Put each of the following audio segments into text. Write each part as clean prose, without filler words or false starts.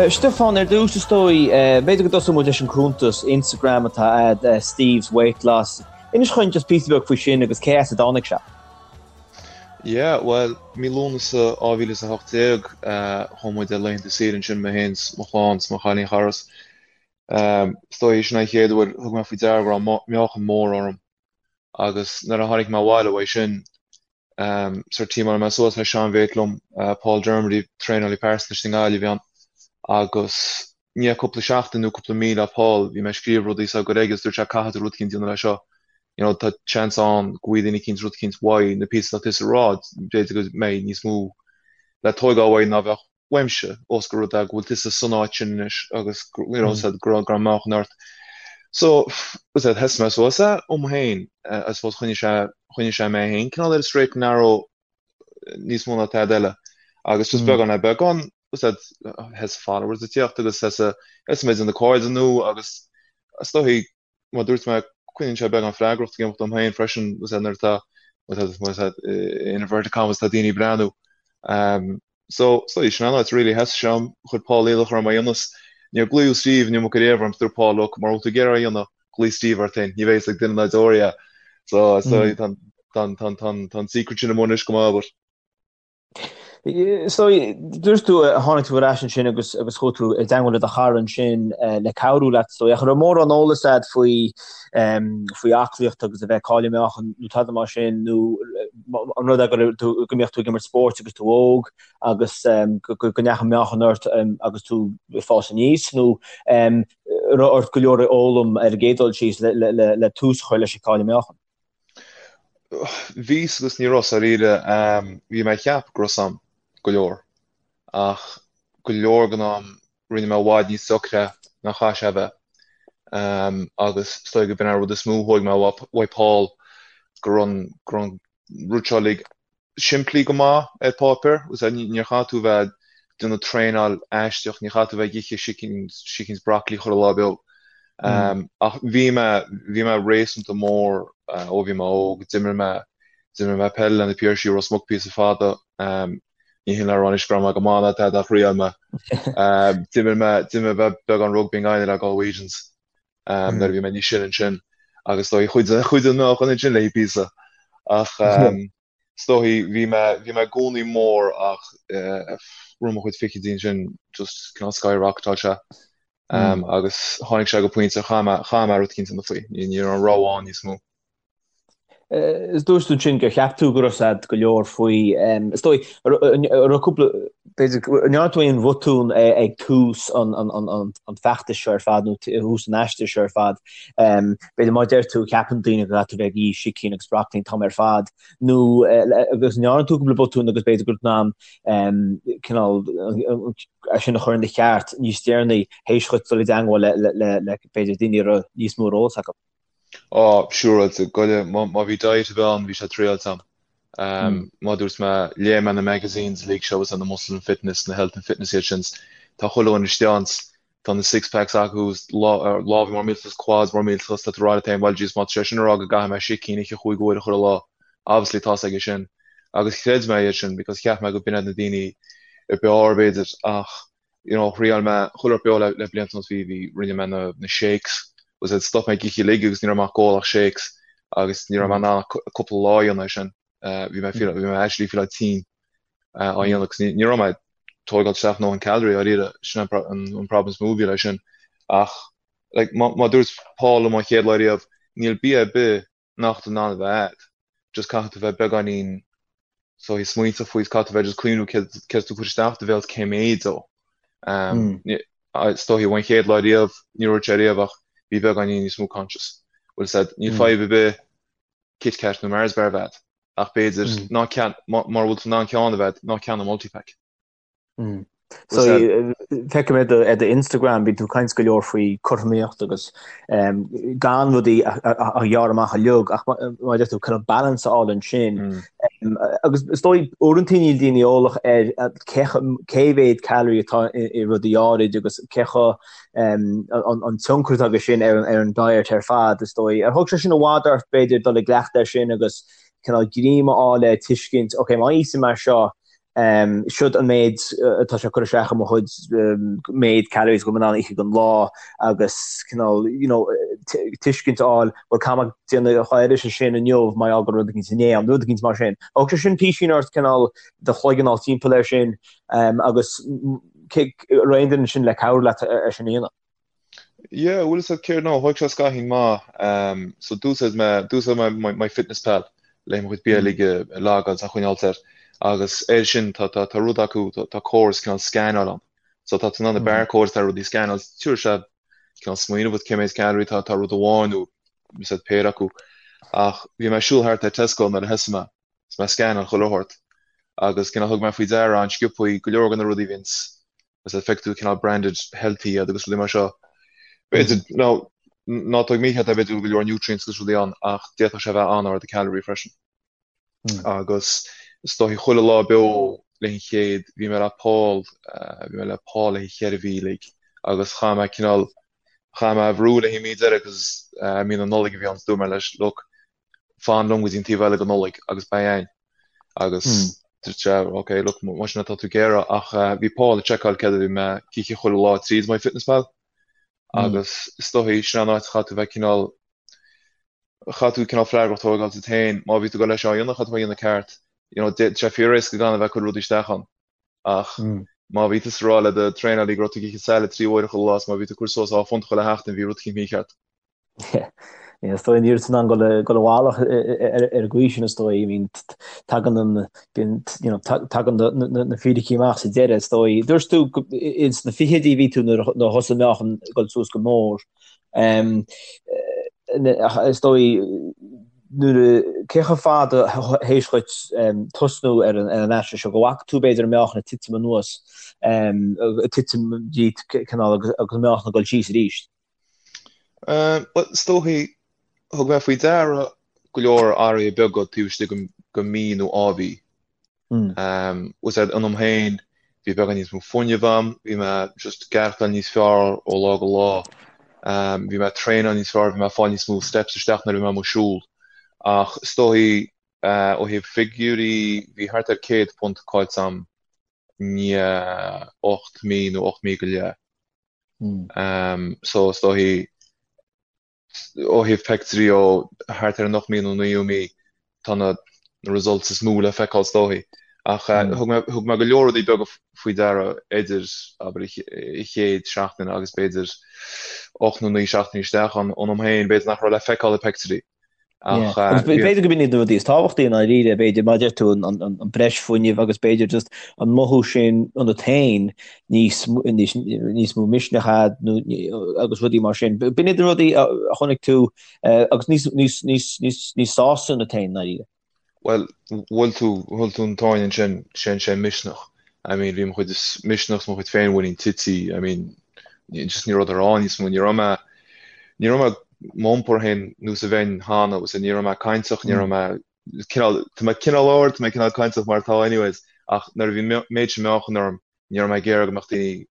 Stiofán, ar dtús is dóigh, b'fhéidir go dtosóidh muid leis an cuntas Instagram atá a'd, Steve's Weight Loss. Inis dhúinn just píosa beag faoi sin agus cé as a dtáinig sé. Yeah, bhuel, mí Lúnasa 2018, chuaigh muid ar laethanta saoire ansin, mé féin 's mo chlann 's mo chailín chara 's is dóigh sin an chéad uair thug mé faoi deara go raibh meáchan mór orm agus nuair a tháinig mé abhaile uaidh sin, Sort thiomáin mé suas le seanmhate liom, Paul Dermody, traenálaí pearsanta istigh i nGaillimh a bhí ann, agus i ndiaidh cúpla seachtain nó cúpla mí le Paul, bhí mé ag scríobh rudaí is á gcur aige agus dúirt sé caithfidh tú rud eicínt a dhéanamh le seo, you know tá seans ann go bhfaighidh daoine eicínt rud eicínt uaidh na píosaí atá tusa ag rá, b'fhéidir go mbeidh níos mó le tóigeáil uaidh ná bheadh uaimse, ós gur rud é go bhfuil tusa san áit sin anois agus you know said go raibh go raibh meáchan ort. So, said thosaigh mé suas é dom féin, I suppose choinnigh sé choinnigh sé mé féin cineál ar an straight and narrow níos mó ná tada eile. Agus just beagán le beagán, said thosaigh followers ag tíocht agus thosaigh thosaigh mé ag déanamh cairde nua agus is dóigh mar dúirt mé, coinníonn sé beagán freagracht ag imeacht dom féin freisin, nuair atá, má tá, in inverted commas, tá daoine ag breathnú. So, so, sin an áit really, thosaigh sé orm, chuir Paul iallach orm é a dhéanamh. Níor glaodh Steve an iomarca riamh orm, dúirt Paul, look, mura bhfuil tú ag iarraidh é a dhéanamh, glaoigh Steve ort féin, ní bheidh fhios ag duine ná deoraí é. So, so, tá, tá, tá, tá, tá an secret sin amuigh anois go maith, but. So, dúirt tú, tháinig tú ar ais ansin agus agus chuaigh tú i dteangmháil le do chara ansin le cabhrú leat, so ach an raibh mórán eolas a'd faoi faoi aclaíocht agus a bheith ag cailleadh meáchan nó tada mar sin nó an rud é go raibh tú go mbíodh tú ag imirt spóirt agus tú óg agus go go ndeachaigh meáchan ort agus tú ag fás aníos nó an raibh ort go leor a fhoghlaim ar an gcéad dul síos le le le tús a chur leis an cailleadh meáchan? Bhí agus ní raibh dáiríre. Bhí mé ag ceapadh go raibh 's a'm go leor, ach go leor den am rinne mé i bhfad níos deacra ná chaith sé a bheith. Agus is dóigh go b'in an rud is mó a thóig mé uaidh Paul, go raibh an go raibh an rud seo uilig simplí go maith ar páipéar, agus níor chaith tú bheith ag déanamh traenáil aisteach, ní chaith tú bheith ag ithe sicín, sicín is broccoli chuile lá beo. Ach bhí mé, bhí mé réasúnta mór ó bhí mé óg, d'imir mé, d'imir mé peil le na Piarsaigh i Ros Muc píosa fada, ní hin le rá anois go raibh mé go maith ná tada ach thriail mé. D'imir mé, d'imir mé beagán rugbaí i nGaillimh le Galwegians nuair a bhí mé níos sine ansin agus is dóigh chuidigh, chuidigh an meáchan ansin léi píosa. Ach is dóigh bhí mé, bhí mé i gcónaí mór ach rith mo chuid fichidí ansin just cineál skyrocketáil sé. Agus tháinig sé go pointe chaith mé, chaith mé rud eicínt a dhéanamh faoi. Ní, ní raibh an rogha ann níos mó. Is dúirt tú ansin gur cheap tú go raibh 's a'd go leor faoi. Is dóigh, an raibh cúpla, b'fhéidir, an ndearna tú aon bhotún ag tús an feachtais seo ar fad nó tús an aistir seo ar fad? B'fhéidir má deir tú, ceapann daoine go gcaithfidh tú bheith ag ithe sicín agus broccoli an t-am ar fad nó agus an ndearna tú cúpla botún agus b'fhéidir go raibh tú in ann cineál é sin a chur ina cheart níos deireanaí théis dhuit dul i dteangmháil le b'fhéidir daoine a raibh níos mó ar eolas acu? Á, siúráilte, goile, má bhí diet ar bith ann, bhí sé triáilte a'm. Mar dúirt mé, léigh mé na magazines uilig seo agus na Muscle and Fitness, na Health and Fitness iad sin, tá chuile dhuine istigh ann, tá na six packs acu, lámha mór millteach, quads mór millteach, tá tú ag rá leat féin, bhuel, jeez, má tá sé sin ag rá go gcaithfidh mé sicín a ithe chúig uaire chuile lá, obviously tá's aige sin. Agus chreid mé iad sin because cheap mé go b'in iad na daoine ab fhearr b'fhéidir ach you know, thriáil mé chuile rud beo le, le blianta anuas, bhí, bhí, rinne mé na, na shakes, was it, stop mé ag ithe uilig agus ní raibh mé ag ól ach shakes agus ní raibh mé in ann ach cúpla lá a dhéanamh é sin. Uh, bhí mé feel, bhí mé actually feel tinn uh, á dhéanamh agus ní, ní raibh mé ag tógáil isteach a ndóthain calorie dáiríre, sin an, an, an problem is mó a bhí leis sin. Ach, like, má, má dúirt Paul liom an chéad lá riamh, níl bia ar bith nach tú in ann a bheith a'd, just caithfidh tú bheith beagáinín so ag smaointeamh faoi, caithfidh tú bheith just cuimhniú céard céard tú cur isteach do bhéal cé méid dó. Is dóichí ón chéad lá riamh, ní dúirt sé riamh ach bhí beagáinín níos mó conscious. Bhfuil 's a'd, níl fadhb ar bith Kit Kat nó Mars bar a bheith a'd, ach b'fhéidir ná ceann, mura bhfuil tú in ann ceann a bheith a'd, ná ceannaigh multipack. So feicim ar do ar do Instagram bíonn tú ag caint go leor faoi cothromaíocht agus gan rudaí a ghearradh amach uilig ach mar a deir tú kind of balance a fháil ansin. Agus is dóigh uaireanta níl daoine eolach ar cé cé mhéad calorie atá i rudaí áirid agus cé chomh an tionchar atá aige sin ar an diet ar fad is dóigh. Ar thóg sé sin i bhfad ort b'fhéidir dul i gcleachtadh air sin agus cineál greim a fháil le tuiscint, ok má íosaim mar seo. Siod an méid atá sé ag cur isteach i mo chuid méid calories go bhfuil mé in ann a ithe don lá agus cineál you know tuiscint a fháil bhuel caithfidh mé déanamh a oiread sin inniu mar gheall go raibh rud éicint inné ann, rud éicint mar sin. Thug sé sin písín ort cineál do chloigeann a fháil timpeall air sin agus raibh aon duine ansin le cabhrú leat é sin a dhéanamh. Yeah, bhfuil fhios agat céard nó, thóg sé scaithín maith. So d'úsáid mé, d'úsáid mé my, MyFitnessPal le mo chuid bia uilig a logáil is a choinneáilt air. Agus air sin tá, tá, tá rud acu, tá, tá córas cineál scannáil ann. So tá tú in ann na barcodes atá ar rudaí a scannáil, tabharfaidh sé cineál smaoineamh duit cé méid calorie atá, tá rud amháin nó is ea péire acu. Ach bhí mé ag siúl thart ar Tesco nuair a thosaigh mé, is mé ag scannáil chuile shórt. Agus cineál thug mé faoi deara an-sciobthaí go leor de na rudaí a bhíonns is ea feicfidh tú cineál branded healthy iad agus rudaí mar seo. B'fhéidir, nó ná tóg mícheart é, b'fhéidir go bhfuil go leor nutrients agus rudaí ann ach d'fhéadfadh sé a bheith an-ard i calorie freisin. Agus is dóichí chuile lá beo le an chéad, bhí mé le Paul, bhí mé le Paul le cheithre mhí uilig agus chaith mé cineál, chaith mé a bhrú le haghaidh mí deiridh agus mí na Nollag a bhí ann, so dúirt mé leis, look, fan liom go dtí an taobh eile de Nollaig agus beidh againn. Agus dúirt sé, ok, look, más sin atá tú ag iarraidh, ach bhí Paul ag seiceáil céard a bhí mé ag ithe chuile lá tríd MyFitnessPal agus is dóichí sin an áit a chaithfidh tú bheith cineál, chaithfidh tú cineál freagracht a thógáil duit féin, má bhí tú ag dul leis seo a dhéanamh, chaithfidh tú a dhéanamh ceart. You know, tá sé fíor-éasca gan a bheith ag cur rudaí isteach ann. Ach má bhí tusa ag rá le do traenálaí go raibh tú ag ithe salad trí huaire chuile lá is má bhí tú ag cur suas dhá phunt chuile sheachtain, bhí rud eicínt mícheart. Is dóigh ní raibh tú in ann dul i bhfalach ar an gcaoi sin is dóigh. I mean tagann an you know tagann na fíricí amach sa deireadh is dóigh. Dúirt tú ins na fichidí a bhí tú nuair a thosaigh an meáchan ag dul suas go mór. Is dóigh nuair a cé chomh fada théis dhuit tosnú ar an aiste seo go bhfaca tú b'fhéidir an meáchan ag titim anuas, ag titim díot cineál agus an meáchan ag dul síos arís? Bhuel, is dóichí, thug mé faoi deara go leor athruithe beaga taobh istigh de mhí nó dhá mhí. Bhfuil fhios agat, ionam féin, bhí beagán níos mó fuinnimh a'm, bhí mé just ag aireachtáil níos fearr ó lá go lá. Bhí mé ag traenáil níos fearr, bhí mé ag fáil níos mó steps isteach nuair a bhí mé amuigh ag siúl. Ach is dóichí, ó thaobh figiúirí, bhí thart ar 100 punt caillte a'm i ndiaidh 8 mí nó 8 mí go leith. So is dóichí ó thaobh pictiúirí ó thart ar an 8 mí nó 9ú mí tá na results is mó le feiceáil is dóichí. Ach thug mé thug mé go leor rudaí beaga faoi deara idir abair an chéad seachtain agus b'fhéidir 8 nó 9 seachtainí isteach ann ionam féin b'fhéidir nach raibh le feiceáil i pictiúirí. Ach Agus b'fhéidir go b'in iad na rudaí is tábhachtaí i ndáiríre, b'fhéidir, mar a deir tú, an breis fuinnimh agus b'fhéidir just an mothú sin ionat féin níos níos mó misneach a'd nó agus rudaí mar sin. B'in iad na rudaí a chonaic tú agus níos níos níos níos níos sásta ionat féin i ndáiríre. Bhuel, bhuail tú, bhuail tú an tóin ansin, sin sé misneach. I mean, bhí mo chuid misneach is mo chuid féinmhuinín tite, I mean, just ní raibh rud ann níos mó, ní raibh mé, ní raibh mé m'iompar féin nós a bheinn cheana, agus ní raibh mé cainteach, ní raibh mé cineál, tá mé cineál ard, tá mé cineál cainteach mar atá anyways, ach nuair a bhí an méid sin meáchan orm, ní raibh mé ag iarraidh go mbeadh daoine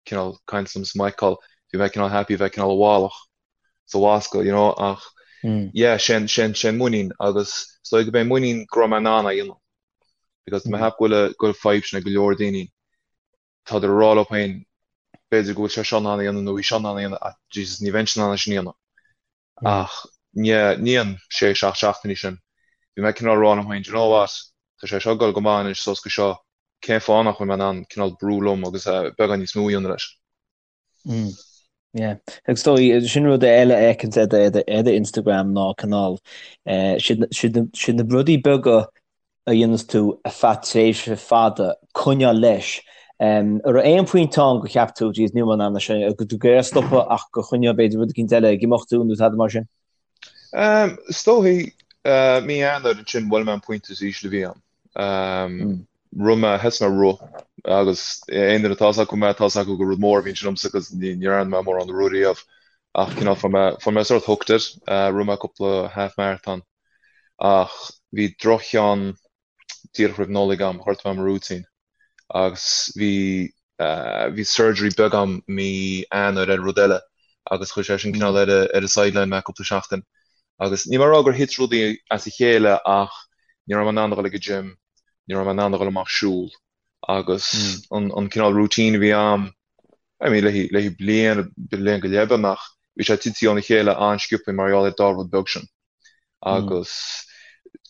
cineál caint liom is m'fheiceáil, bhí mé cineál happy bheith cineál i bhfalach sa bhascaill, you know, ach yeah, sin, sin, sin muinín agus is dóigh go b'é muinín go raibh mé in ann é a dhéanamh because tá mé ag ceapadh go bhfuil, go bhfuil fadhb sin ag go leor daoine, tádar ag rá leo féin b'fhéidir go bhfuil sé seo in ann a dhéanamh nó í seo in ann a dhéanamh ach Jesus ní bheinnse in ann é sin a dhéanamh. Ach i ndiaidh an sé, seacht seachtainí sin, bhí mé cineál ag rá liom féin, do you know what, tá sé seo ag dul go maith anois suas go seo, cén fáth nach bhfuil mé in ann cineál brú liom agus beagán níos mó a dhéanamh leis. Mm. Yeah. Agus is dóigh, sin rud eile a fheiceann ar ar do Instagram ná cineál eh, siad siad siad na rudaí beaga a dhéanas tú ar feadh tréimhse fada, coinneáil leis. An raibh aon phointe ann gur cheap tú, jeez, níl mé in ann é sin, go tú ag iarraidh stopadh ach gur choinnigh b'fhéidir rud eicínt eile ag imeacht tú nó tada mar sin? Is dóichí, mí Eanáir ansin bhuail mé an pointe is ísle a bhí ann. Rith mé, thosaigh mé ag rith agus aon duine atá fhios acu mé, tá fhios acu gur rud mór a bhí ansin domsa 'cause ní dhearna mé mórán rith riamh ach cineál fuair mé, fuair mé sort hooked air, rith mé cúpla half marathon. Ach bhí droch-cheann díreach roimh Nollaig agam, ghortaigh mé mo rúitín agus bhí bhí surgery beag agam mí Eanáir ar rud eile agus chuir sé sin cineál ar ar an sideline mé cúpla seachtain. Agus níl mé ag rá gur thit rudaí as a chéile ach ní raibh mé in ann a dhul ag an gym. Ní raibh mé in ann a dhul amach siúl agus an an cineál routine a bhí a'm, I mean le le bliain, bliain go leith beagnach, bhí sé tite óna chéile an-sciobtha mar gheall ar dá rud beag sin. Agus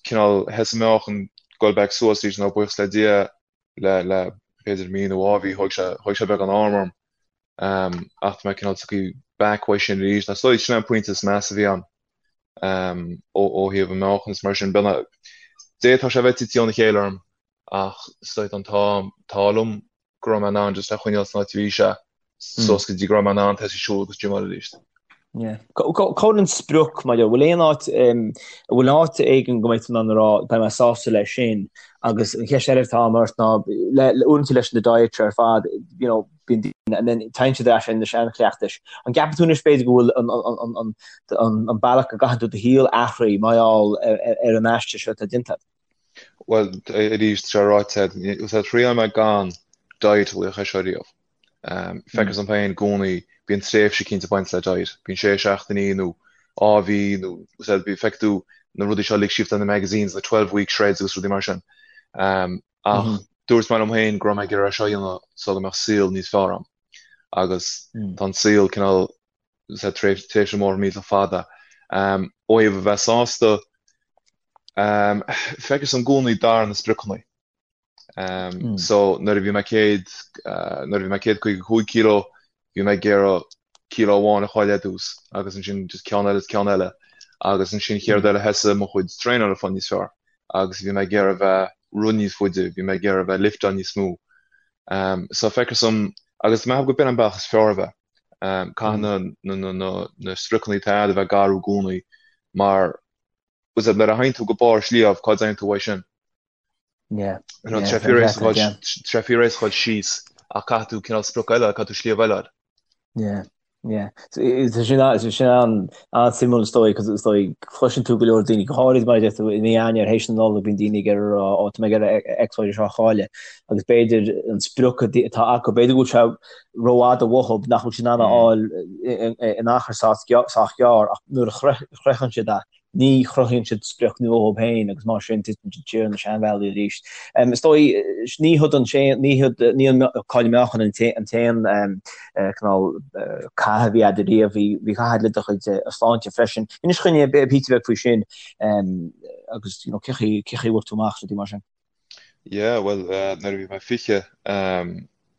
cineál thosaigh mo mheáchan goil back suas arís now buíochas le Dia le le b'fhéidir mí nó dhá mhí thóg sé thóg sé beagán am orm. Ach tá mé cineál tagtha back uaidh sin arís. Is dóigh sin an pointe is measa a bhí a'm. ó thaobh an meáchan is mar sin. D'fhéadfadh sé a bheith tite óna chéile orm ach is dóigh an t-ádh liom go raibh mé in ann just é a choinneáil san áit a bhí sé suas go dtí go raibh mé in ann tosaí siúl agus gymeáil arís. Cá bhfuil an sprioc maidir, bhfuil aon áit, an bhfuil áit éigin go mbeidh tú in ann a rá beidh mé sásta leis sin agus an cheist eile atá agam ort ná le uaireanta leis na diets ar fad, you know, bíonn daoine and then téann siad ar ais ar na seanchleachtais. An gceapann tú anois b'fhéidir go bhfuil an bealach go gcaitheann tú do shaol athraithe mar gheall ar an aistear seo atá déanta agat? Bhuel, arís, tá sé ráite agat, thriail mé gan diet a laoch é seo riamh. Feictear dom féin i gcónaí, bíonn tréimhse cinnte ag baint le diet. Bíonn sé seachtainí nó dhá mhí nó feicfidh tú na rudaí seo uilig síos na magazines, na 12 week shreds agus rudaí mar sin. Ach dúirt mé liom féin go raibh mé ag iarraidh é seo a dhéanamh so go mbeadh saol níos fearr agam. Agus tá an saol cineál sa tréimhse mór millteach fada. Ó thaobh a bheith sásta, feictear dom i gcónaí d'athraigh na spriocanna. So nuair a bhí mé céad, nuair a bhí mé 155 kilo, bhí mé ag iarraidh kilo amháin a chailleadh ar dtús agus ansin just ceann eile is ceann eile agus ansin chéad rud eile thosaigh mo chuid traenála ag fáil níos fearr agus bhí mé ag iarraidh bheith rith níos faide, bhí mé ag iarraidh bheith lifteáil níos mó. Um, so feictear dom agus mé go b'in an bealach is fearr a bheith. Um, caithfidh na, na, na, na, na spriocanna atá agat a bheith ag athrú i gcónaí mar nuair a théann tú go barr sliabh, cá dtéann tú uaidh sin? Yeah. You know, tá sé fíor-éasca a dhul síos ach caithfidh tú cineál sprioc eile, caithfidh tú sliabh eile a fháil. Yeah. Yeah. Tá sin tá sin an-suimiúil is dóigh, cos is dóigh cloiseann tú go leor daoine, go háirid mar a deir tú i mí Eanáir théis na Nollag bíonn daoine ag iarraidh a rá ó tá mé ag iarraidh X, Y seo a chailleadh agus b'fhéidir an sprioc atá acu, b'fhéidir go bhfuil sé rófhada uathu nach bhfuil siad in ann a fháil in achar sách gearr ach nuair a shroicheann siad é Ní chruthaíonn siad sprioc nua dhóibh féin agus mar sin titeann siad siar ar na seanbhealaí arís. Is dóigh, ní hiod an ní hiod, ní an cailleadh meáchain an t-aon cineál cath a bhí agat riamh, bhí bhí cath le do chuid sláinte freisin. Inis dúinn píosa beag faoi sin agus you know cé chaoi cé chaoi a bhfuair tú amach rudaí mar sin. Yeah, bhuel, nuair a bhí mé 20,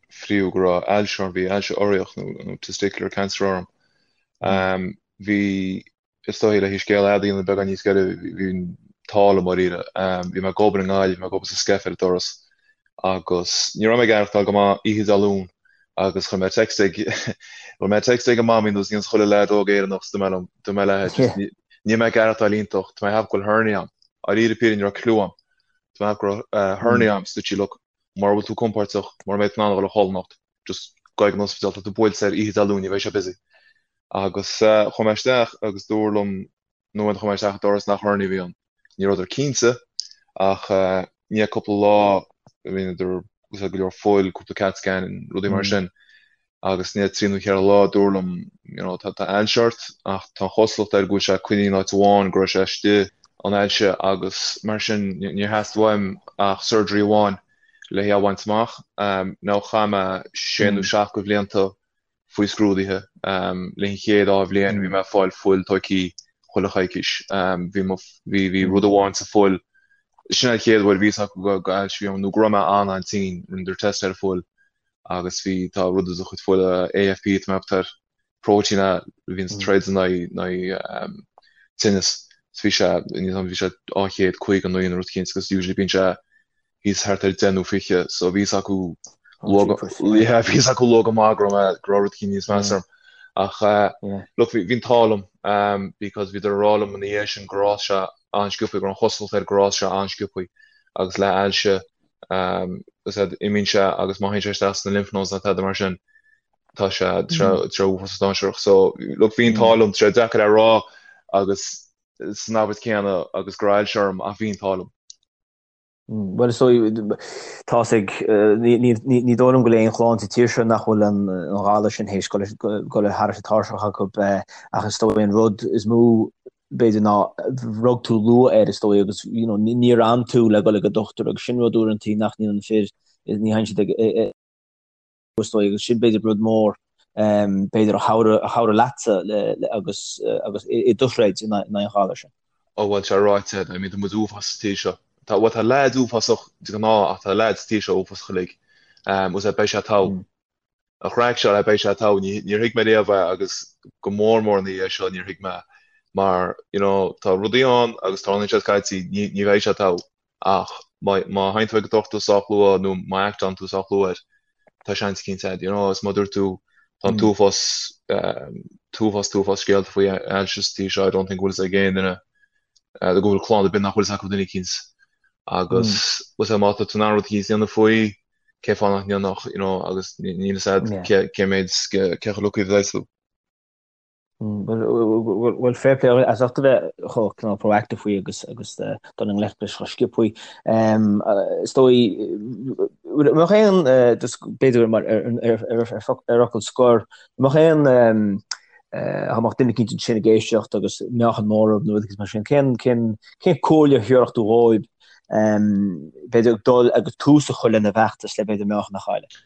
fiafraíodh go raibh ailse orm, bhí ailse urraíoch nó testicular cancer orm. Bhí Is dóigh le scéal fhada a dhéanamh beagán níos giorra, bhí an t-ádh liom dáiríre. Bhí mé ag obair i nGaillimh, bhí mé ag obair sa Skeff ar an doras agus ní raibh mé ag aireachtáil go maith oíche Dé Luain agus chuir mé text ag chuir mé text ag an mamaí nós a dhéananns chuile leaid óg Éireannach is dúirt mé liom, dúirt mé léi just níl mé ag aireachtáil iontach, tá mé ag ceapadh go bhfuil hernia agam. Dáiríre píre ní raibh clue agam. Tá mé ag ceapadh go raibh hernia agam, so dúirt sí look, mura bhfuil tú compordach, mura mbeidh tú in ann a dhul a chodladh anocht, just gabh ag an ospidéal, tá tú buailte air oíche Dé Luain, ní bheidh sé busy. Agus chuaigh mé isteach agus dúradh liom nuair a chuaigh mé isteach an doras nach hernia a bhí ann. Ní rabhadar cinnte ach i ndiaidh cúpla lá rinneadar go leor fuil, cúpla CAT scan, rudaí mar sin agus i ndiaidh trí nó cheithre lá dúradh liom you know tá ailse ort ach tá an chosúlacht air go bhfuil sé coinnithe in áit amháin, go raibh sé istigh an ailse agus mar sin níor theastaigh uaim ach surgery amháin le hé a bhaint amach. Now chaith mé sé nó seacht de bhlianta faoi scrúduithe. Le an chéad dá bhliain bhí mé ag fáil fuil tógtha chuile choicís. Bhí mo, bhí, bhí rud amháin sa fuil, sin an chéad uair a bhí fhios acu go, go ailse a bhí orm nó go raibh mé an-an-tinn, rinneadar test ar an fuil agus bhí, tá rud i do chuid fuile, AFP tá mé ag ceapadh air, próitéin a bhíonns ag troid in aghaidh, in aghaidh tinneas. So bhí sé, bhí sé 259 nó rud eicínt agus usually bíonn sé thíos thart ar 10 nó 20 so bhí fhios acu luath yeah bhí fhios acu luath go maith go raibh mé go raibh rud eicínt níos measa orm ach look bhí an t-ádh liom because bhíodar ag rá liom ina dhiaidh sin gur fhás sé an-sciobtha go raibh an chosúlacht air gur fhás sé an-sciobtha agus le ailse is ea imíonn sé agus má théann sé isteach sna lymph nodes nó tada mar sin tá sé tá sé uafásach dainséarach so look bhí an t-ádh liom tá sé deacair a rá agus san abairt céanna agus go raibh ailse orm ach bhí an t-ádh liom. Bhuel, is dóigh, tá's ag, ní dóigh liom go bhfuil aon chlann sa tír seo nach bhfuil an galar sin théis dul thar an tairseach acu, ach is dóigh an rud is mó. B'fhéidir ná rug tú luath air is dóigh agus you know níor fhan tú le dul ag an dochtúir agus sin rud uaireantaí nach ndéanann fir, ní théann siad ag is dóigh agus sin b'fhéidir rud mór b'fhéidir a chabhraigh a chabhraigh leatsa le le agus agus i do throid in aghaidh an ghalair sin. Ó bhuel tá ráite, I mean tá muid uafásach sa tír seo. Tá bhuel tá leaids uafásach de ghnáth ach tá leaids sa tír seo uafásach uilig. Bhuel beidh sé togha. An chraic seo le beidh sé togha, níor thuig mé riamh é agus go mór mór ina dhiaidh seo níor thuig mé mar you know tá rudaí ann agus tarlaíonn siad scaití, ní ní bheidh sé togha ach má má théann tú ag an dochtúir sách luath nó má act-álann tú sách luath air tá seans eicínt agat you know is mar a dúirt tú tá an t-uafás t-uafás t-uafás scéalta faoi ailse sa tír seo I don't think go bhfuil fhios ag aon duine go bhfuil clann ar bith nach bhfuil fhios acu duine eicínt agus bhfuil má tá tú in ann rud eicínt a dhéanamh faoi cén fáth nach ndéanfadh, you know, agus níl fhios a'd Yeah. cé méid, cé chomh lucky a bheidh tú. Bhuel, fair play as ucht a bheith chomh cineál proactive faoi agus agus dul i ngleic leis chomh sciobtha. Is dóigh, mbeadh aon, just b'fhéidir mar ar ar fhocal scoir, mbeadh aon dá mbeadh duine eicínt ansin ag éisteacht agus meáchan mór orthu nó rud mar sin, cén cén cén comhairle a thabharfadh tú dhóibh b'fhéidir ag dul agus tús a chur lena bhfeachtas le b'fhéidir meáchan a chailleadh.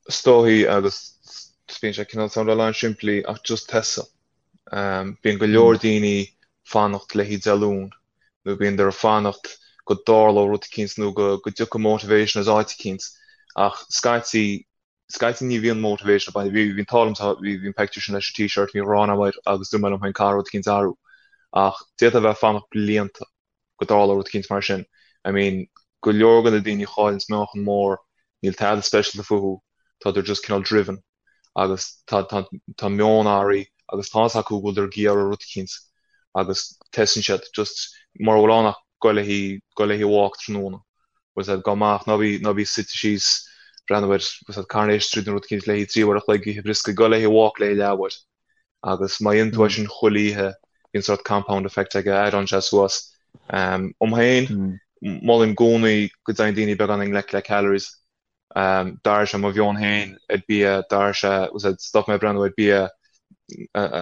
Is dóigh agus bíonn sé cineál soundáil an-simplí ach just tosaigh. Bíonn go leor daoine fanacht le haghaidh Dé Luain nó bíonn ag fanacht go dtarlódh rud eicínt nó go dtiocfaidh motivation as áit eicínt ach scaití scaití ní bhíonn motivation ag baint, bhí an t-ádh liom, bhí bhí an pictiúr sin leis an t-shirt, bhí ghrán agam air agus dúirt mé liom féin caithfidh rud eicínt athrú ach d'fhéadfá a bheith ag fanacht blianta go dtarlódh rud eicínt mar sin. I mean, go leor de na daoine a chailleanns meáchan mór, níl tada speisialta fúthu, tádar just cineál driven agus tá tá tá meon athraithe agus tá fhios acu go bhfuildar ag iarraidh rud eicínt agus tosaíonn siad just mura bhfuil ann ach goil le haghaidh goil le haghaidh walk tráthnóna. Bhfuil fhios a'd, gabh amach, ná bí ná bí suite síos, breathnú ar, bhfuil fhios a'd, Coronation Street nó rud eicínt le haghaidh 3 uair a chloig, ithe brioscaí, goil le haghaidh walk le haghaidh leathuair. Agus má dhéanann tú é sin chuile oíche, bíonn sórt compound effect aige, add-ann sé suas. Dom féin, molaim i gcónaí go dtéann daoine beagán i ngleic le calories. D'athraigh sé mo mheon féin ar bia, d'athraigh sé, bhfuil fhios a'd, stop mé ag breathnú ar bia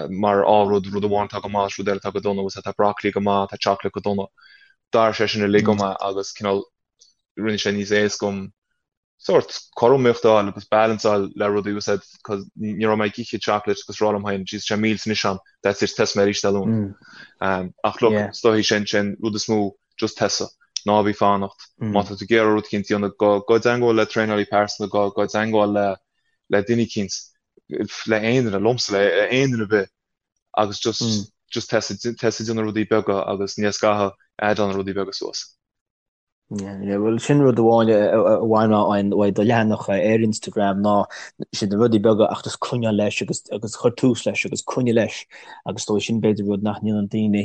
mar á rud, rud amháin atá go maith is rud eile atá go dona, bhfuil fhios a'd, tá broccoli go maith, tá chocolate go dona. D'athraigh sé sin uilig dom agus cineál rinne sé níos éasca dom sórt cothromaíocht a fháil agus balance a fháil le rudaí bhfuil fhios a'd cos ní raibh mé ag ithe chocolate agus rá liom féin jeez tá sé milse anois a'm that's it tosóidh mé arís Dé Luain. Ach look is dóichí sin sin rud is mó just tosaigh ná bí fanacht má tá tú ag iarraidh rud eicínt a dhéanamh gabh gabh i dteangmháil le traenálaí pearsanta gabh gabh i dteangmháil le le duine eicínt le aon duine liomsa le aon duine ar bith agus just just tosaigh tosaigh ag déanamh rudaí beaga agus ní scaitheamh add-áil na rudaí beaga suas. Bhuel, sin rud amháin a bhain mé uaidh do leathanach ar Instagram ná sin na rudaí beaga ach just coinneáil leis agus agus chuir tús leis agus coinnigh leis agus dóigh sin b'fhéidir rud nach ndéanann daoine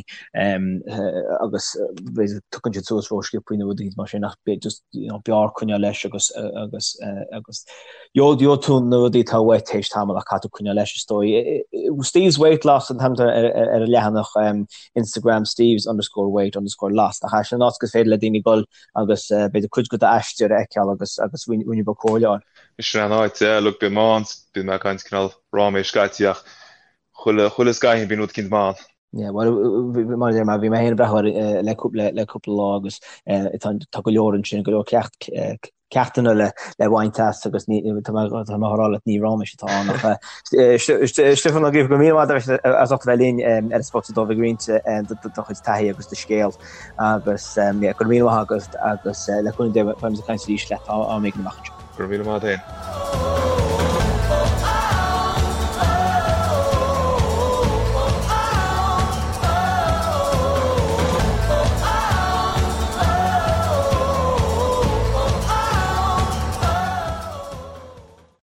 agus b'fhéidir tugann siad suas ró-sciobtha nó rudaí mar sin ach just you know b'fhearr coinneáil leis agus agus agus gheobhaidh tú na rudaí atá uait théis tamall ach caithfidh tú coinneáil leis is dóigh. Steve's Weight Loss an t-ainm ar an leathanach. Instagram Steve's underscore weight underscore loss nach ea? Sin an áit gur féidir le daoine dul agus b'fhéidir cuid de d'aistear a fheiceáil agus agus roinnt beag comhairle a fháil. Sin an áit, yeah, look, bím ann, bíonn mé ag caint cineál ráiméis scaití ach chuile, chuile scaithín bíonn rud eicínt maith ann. Yeah, well, mar a deir mé, bhí mé féin ag breathnú air le cúpla, le cúpla lá agus tá, tá go leor ansin, go leor ceacht, ceachtanna le le baint as agus ní tá mé tá mé á rá leat ní ráiméis atá ann ach Stiofán Ó Gríofa go raibh míle maith agat as ucht a bheith linn ar an Spota Dubh ag roinnt do chuid taithí agus do scéal agus go raibh míle maith agat agus le cúnamh Dé beimid ag caint arís leat am éigin amach anseo. Go raibh míle maith agat féin.